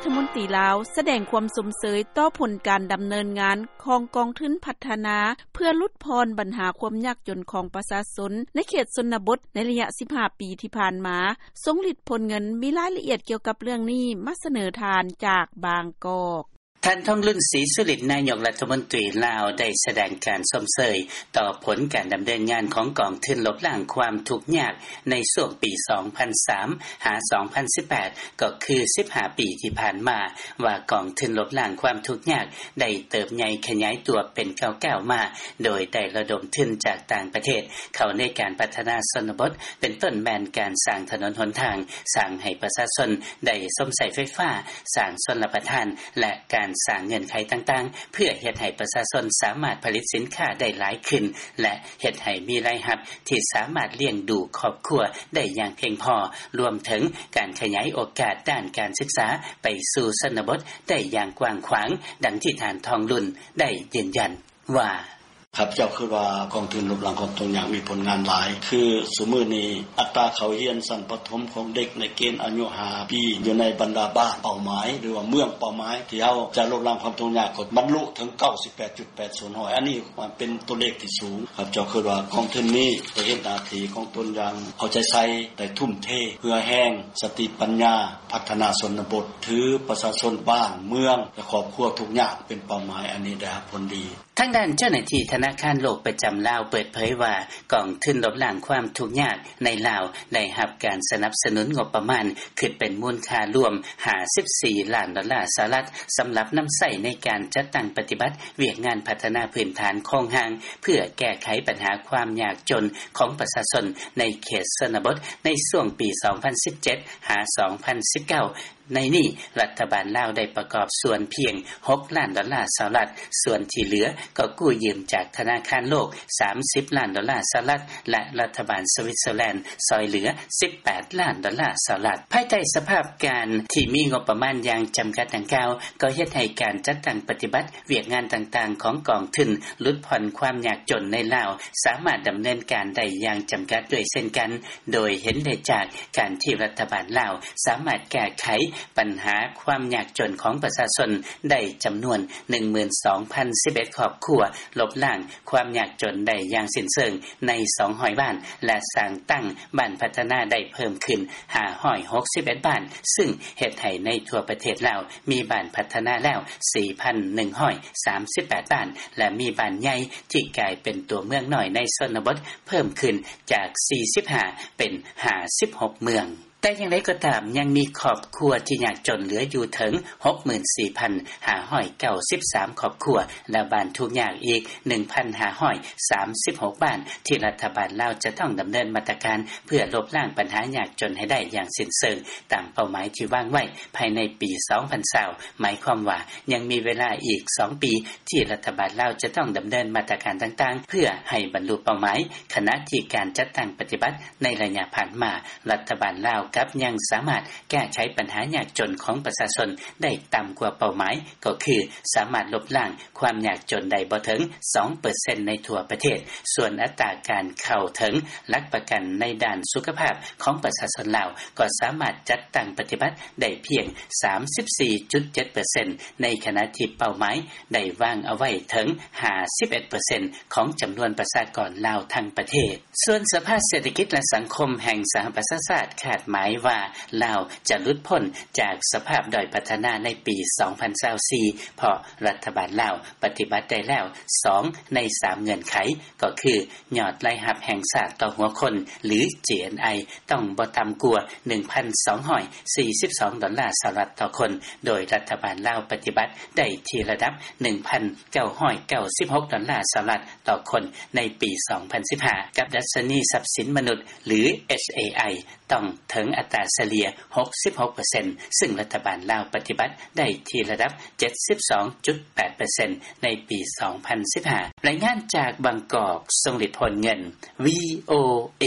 ຖະມົນຕີລາວ ສະແດງຄວາມຊົມເຊີຍ ຕໍ່ຜົນການດຳເນີນງານ ຂອງກອງທຶນພັດທະນາ ເພື່ອຫຼຸດຜ່ອນບັນຫາຄວາມຍາກຈົນ ຂອງປະຊາຊົນ ໃນເຂດຊົນນະບົດ ໃນໄລຍະ ສິບຫ້າປີ ທີ່ຜ່ານມາ ຊົງລິດຜົນເງິນ. ມີລາຍລະອຽດກ່ຽວກັບເລື່ອງນີ້ ມາສະເໜີທ່ານຈາກບາງກອກ. ທ່ານ ທອງລຸນ ສີສຸລິດ ນາຍົກລັດຖະມົນຕີລາວ ໄດ້ສະແດງການຊົມເຊີຍ ຕໍ່ຜົນການດຳເນີນງານ ຂອງກອງທຶນລົບລ້າງຄວາມທຸກຍາກ ໃນຊ່ວງປີ ສອງພັນສາມ ຫາ ສອງພັນສິບແປດ ກໍຄື ສິບຫ້າປີ ທີ່ຜ່ານມາ ວ່າກອງທຶນລົບລ້າງຄວາມທຸກຍາກ ໄດ້ເຕີບໃຫຍ່ຂະຫຍາຍຕົວເປັນກ້າວໆມາ ໂດຍໄດ້ລະດົມທຶນຈາກຕ່າງປະເທດ ເຂົ້າໃນການພັດທະນາຊົນນະບົດ ເປັນຕົ້ນແມ່ນການສ້າງຖະໜົນຫົນທາງ, ສ້າງໃຫ້ປະຊາຊົນໄດ້ຊົມໃຊ້ໄຟຟ້າ, ສ້າງຊົນລະປະທານ ແລະ ການສ້າງເງື່ອນໄຂຕ່າງໆ ເພື່ອເຮັດໃຫ້ປະຊາຊົນສາມາດຜະລິດສິນຄ້າໄດ້ຫຼາຍຂຶ້ນ ແລະ ເຮັດໃຫ້ມີລາຍຮັບທີ່ສາມາດລ້ຽງດູຄອບຄົວໄດ້ຢ່າງພຽງພໍ, ລວມເຖິງການຂະຫຍາຍໂອກາດດ້ານການສຶກສາໄປສູ່ຊົນນະບົດໄດ້ຢ່າງກວ້າງຂວາງ, ດັ່ງທີ່ທ່ານ ທອງລຸນ ໄດ້ຢືນຢັນວ່າ: ຂ້າພະເຈົ້າຄິດວ່າກອງທຶນລົບລ້າງຄວາມທຸກຍາກມີຜົນງານຫຼາຍ, ຄືຊຸມື້ນີ້ອັດຕາເຂົ້າຮຽນຊັ້ນປະຖົມຂອງເດັກໃນເກນອາຍຸຫ້າປີ ຢູ່ໃນບັນດາບ້ານເປົ້າໝາຍ ຫຼືວ່າເມືອງເປົ້າໝາຍ ທີ່ເຮົາຈະລົບລ້າງຄວາມທຸກຍາກ ກໍບັນລຸເຖິງ ເກົ້າສິບແປດຈຸດແປດສ່ວນຮ້ອຍ. ອັນນີ້ເປັນຕົວເລກທີ່ສູງ. ຂ້າພະເຈົ້າຄິດວ່າກອງທຶນນີ້ໄດ້ເຮັດໜ້າທີ່ຂອງຕົນຢ່າງເອົາໃຈໃສ່, ໄດ້ທຸ່ມເທເຫື່ອແຮງ, ສະຕິປັນຍາ, ພັດທະນາຊົນນະບົດ, ຖືປະຊາຊົນບ້ານເມືອງ ແລະ ຄອບຄົວທຸກຍາກເປັນເປົ້າໝາຍ, ອັນນີ້ໄດ້ຮັບຜົນດີ. ທາງດ້ານເຈົ້າໜ້າທີ່ທະນາຄານໂລກປະຈຳລາວເປີດເຜີຍວ່າ ກອງທຶນລົບລ້າງຄວາມທຸກຍາກໃນລາວ ໄດ້ຮັບການສະໜັບສະໜູນງົບປະມານ ຄິດເປັນມູນຄ່າລວມ ຫ້າສິບສີ່ລ້ານດອນລາສະຫະລັດ ສຳລັບນຳໃຊ້ໃນການຈັດຕັ້ງປະຕິບັດວຽກງານພັດທະນາພື້ນຖານໂຄງຮ່າງ ເພື່ອແກ້ໄຂບັນຫາຄວາມຍາກຈົນຂອງປະຊາຊົນໃນເຂດຊົນນະບົດ ໃນຊ່ວງປີ ສອງພັນສິບເຈັດ ຫາ ສອງພັນສິບເກົ້າ. ໃນນີ້ ລັດຖະບານລາວໄດ້ປະກອບສ່ວນພຽງ ຫົກລ້ານດອນລາສະຫະລັດ, ສ່ວນທີ່ເຫຼືອກໍກູ້ຢືມຈາກທະນາຄານໂລກ ສາມສິບລ້ານດອນລາສະຫະລັດ ແລະ ລັດຖະບານສະວິດເຊີແລນຊ່ອຍເຫຼືອ ສິບແປດລ້ານດອນລາສະຫະລັດ. ພາຍໃຕ້ສະພາບການທີ່ມີງົບປະມານຢ່າງຈຳກັດດັ່ງກ່າວ ກໍເຮັດໃຫ້ການຈັດຕັ້ງປະຕິບັດວຽກງານຕ່າງໆຂອງກອງທຶນຫຼຸດຜ່ອນຄວາມຍາກຈົນໃນລາວ ສາມາດດຳເນີນການໄດ້ຢ່າງຈຳກັດດ້ວຍເຊັ່ນກັນ, ໂດຍເຫັນໄດ້ຈາກການທີ່ລັດຖະບານລາວສາມາດແກ້ໄຂບັນຫາຄວາມຍາກຈົນຂອງປະຊາຊົນໄດ້ຈຳນວນ ໜຶ່ງໝື່ນສອງພັນສິບເອັດຄອບຄົວ, ລົບລ້າງຄວາມຍາກຈົນໄດ້ຢ່າງສິ້ນເຊີງໃນ ສອງຮ້ອຍບ້ານ ແລະ ສ້າງຕັ້ງບ້ານພັດທະນາໄດ້ເພີ່ມຂຶ້ນ ຫ້າຮ້ອຍຫົກສິບເອັດບ້ານ, ຊຶ່ງເຮັດໃຫ້ໃນທົ່ວປະເທດລາວມີບ້ານພັດທະນາແລ້ວ ສີ່ພັນໜຶ່ງຮ້ອຍສາມສິບແປດບ້ານ ແລະ ມີບ້ານໃຫຍ່ທີ່ກາຍເປັນຕົວເມືອງນ້ອຍໃນຊົນນະບົດ ເພີ່ມຂຶ້ນຈາກ ສີ່ສິບຫ້າ ເປັນ ຫ້າສິບຫົກເມືອງ. ແຕ່ຢ່າງໃດກໍຕາມ, ຍັງມີຄອບຄົວທີ່ຍາກຈົນເຫຼືອຢູ່ເຖິງ ຫົກໝື່ນສີ່ພັນຫ້າຮ້ອຍເກົ້າສິບສາມຄອບຄົວ ແລະ ບ້ານທຸກຍາກອີກ ໜຶ່ງພັນຫ້າຮ້ອຍສາມສິບຫົກບ້ານ ທີ່ລັດຖະບານລາວຈະຕ້ອງດຳເນີນມາດຕະການເພື່ອລົບລ້າງບັນຫາຍາກຈົນໃຫ້ໄດ້ຢ່າງສິ້ນເຊີງ ຕາມເປົ້າໝາຍທີ່ວາງໄວ້ພາຍໃນປີ ສອງພັນຊາວ ໝາຍຄວາມວ່າຍັງມີເວລາອີກ ສອງປີ ທີ່ລັດຖະບານລາວຈະຕ້ອງດຳເນີນມາດຕະການຕ່າງໆ ເພື່ອໃຫ້ບັນລຸເປົ້າໝາຍ, ຂະນະທີ່ການຈັດຕັ້ງປະຕິບັດໃນໄລຍະຜ່ານມາ ລັດຖະບານລາວກັບຍັງສາມາດແກ້ໄຂບັນຫາຍາກຈົນຂອງປະຊາຊົນໄດ້ຕ່ຳກວ່າເປົ້າໝາຍ ກໍຄືສາມາດລົບລ້າງຄວາມຍາກຈົນໄດ້ບໍ່ເຖິງ ສອງເປີເຊັນ ໃນທົ່ວປະເທດ. ສ່ວນອັດຕາການເຂົ້າເຖິງຫຼັກປະກັນໃນດ້ານສຸຂະພາບຂອງປະຊາຊົນລາວ ກໍສາມາດຈັດຕັ້ງປະຕິບັດໄດ້ພຽງ ສາມສິບສີ່ຈຸດເຈັດເປີເຊັນ ໃນຂະນະທີ່ເປົ້າໝາຍໄດ້ວາງເອົາໄວ້ເຖິງ ຫ້າສິບເອັດເປີເຊັນ ຂອງຈຳນວນປະຊາກອນລາວທັງປະເທດ. ສ່ວນສະພາເສດຖະກິດ ແລະ ສັງຄົມແຫ່ງສະຫະປະຊາຊາດຄາດໝາຍວ່າ ລາວຈະຫຼຸດພົ້ນຈາກສະພາບດ້ອຍພັດທະນາໃນປີ ສອງພັນຊາວສີ່ ເພາະລັດຖະບານລາວປະຕິບັດໄດ້ແລ້ວ ສອງໃນສາມເງື່ອນໄຂ ກໍຄື ຍອດລາຍຮັບແຫ່ງຊາດຕໍ່ຫົວຄົນ ຫຼື GNI ຕ້ອງບໍ່ຕ່ຳກວ່າ ໜຶ່ງພັນສອງຮ້ອຍສີ່ສິບສອງດອນລາສະຫະລັດຕໍ່ຄົນ, ໂດຍລັດຖະບານລາວປະຕິບັດໄດ້ທີ່ລະດັບ ໜຶ່ງພັນເກົ້າຮ້ອຍເກົ້າສິບຫົກດອນລາສະຫະລັດຕໍ່ຄົນໃນປີ ສອງພັນສິບຫ້າ ກັບດັດຊະນີຊັບສິນມະນຸດ ຫຼື HAI ຕ້ອງເຖິງອັດຕາສະເລ່ຍ ຫົກສິບຫົກເປີເຊັນ ຊຶ່ງລັດຖະບານລາວປະຕິບັດໄດ້ທີ່ລະດັບ ເຈັດສິບສອງຈຸດແປດເປີເຊັນ ໃນປີ ສອງພັນສິບຫ້າ. ລາຍງານຈາກບາງກອກ, ຊົງລິດ ໂພນເງິນ VOA.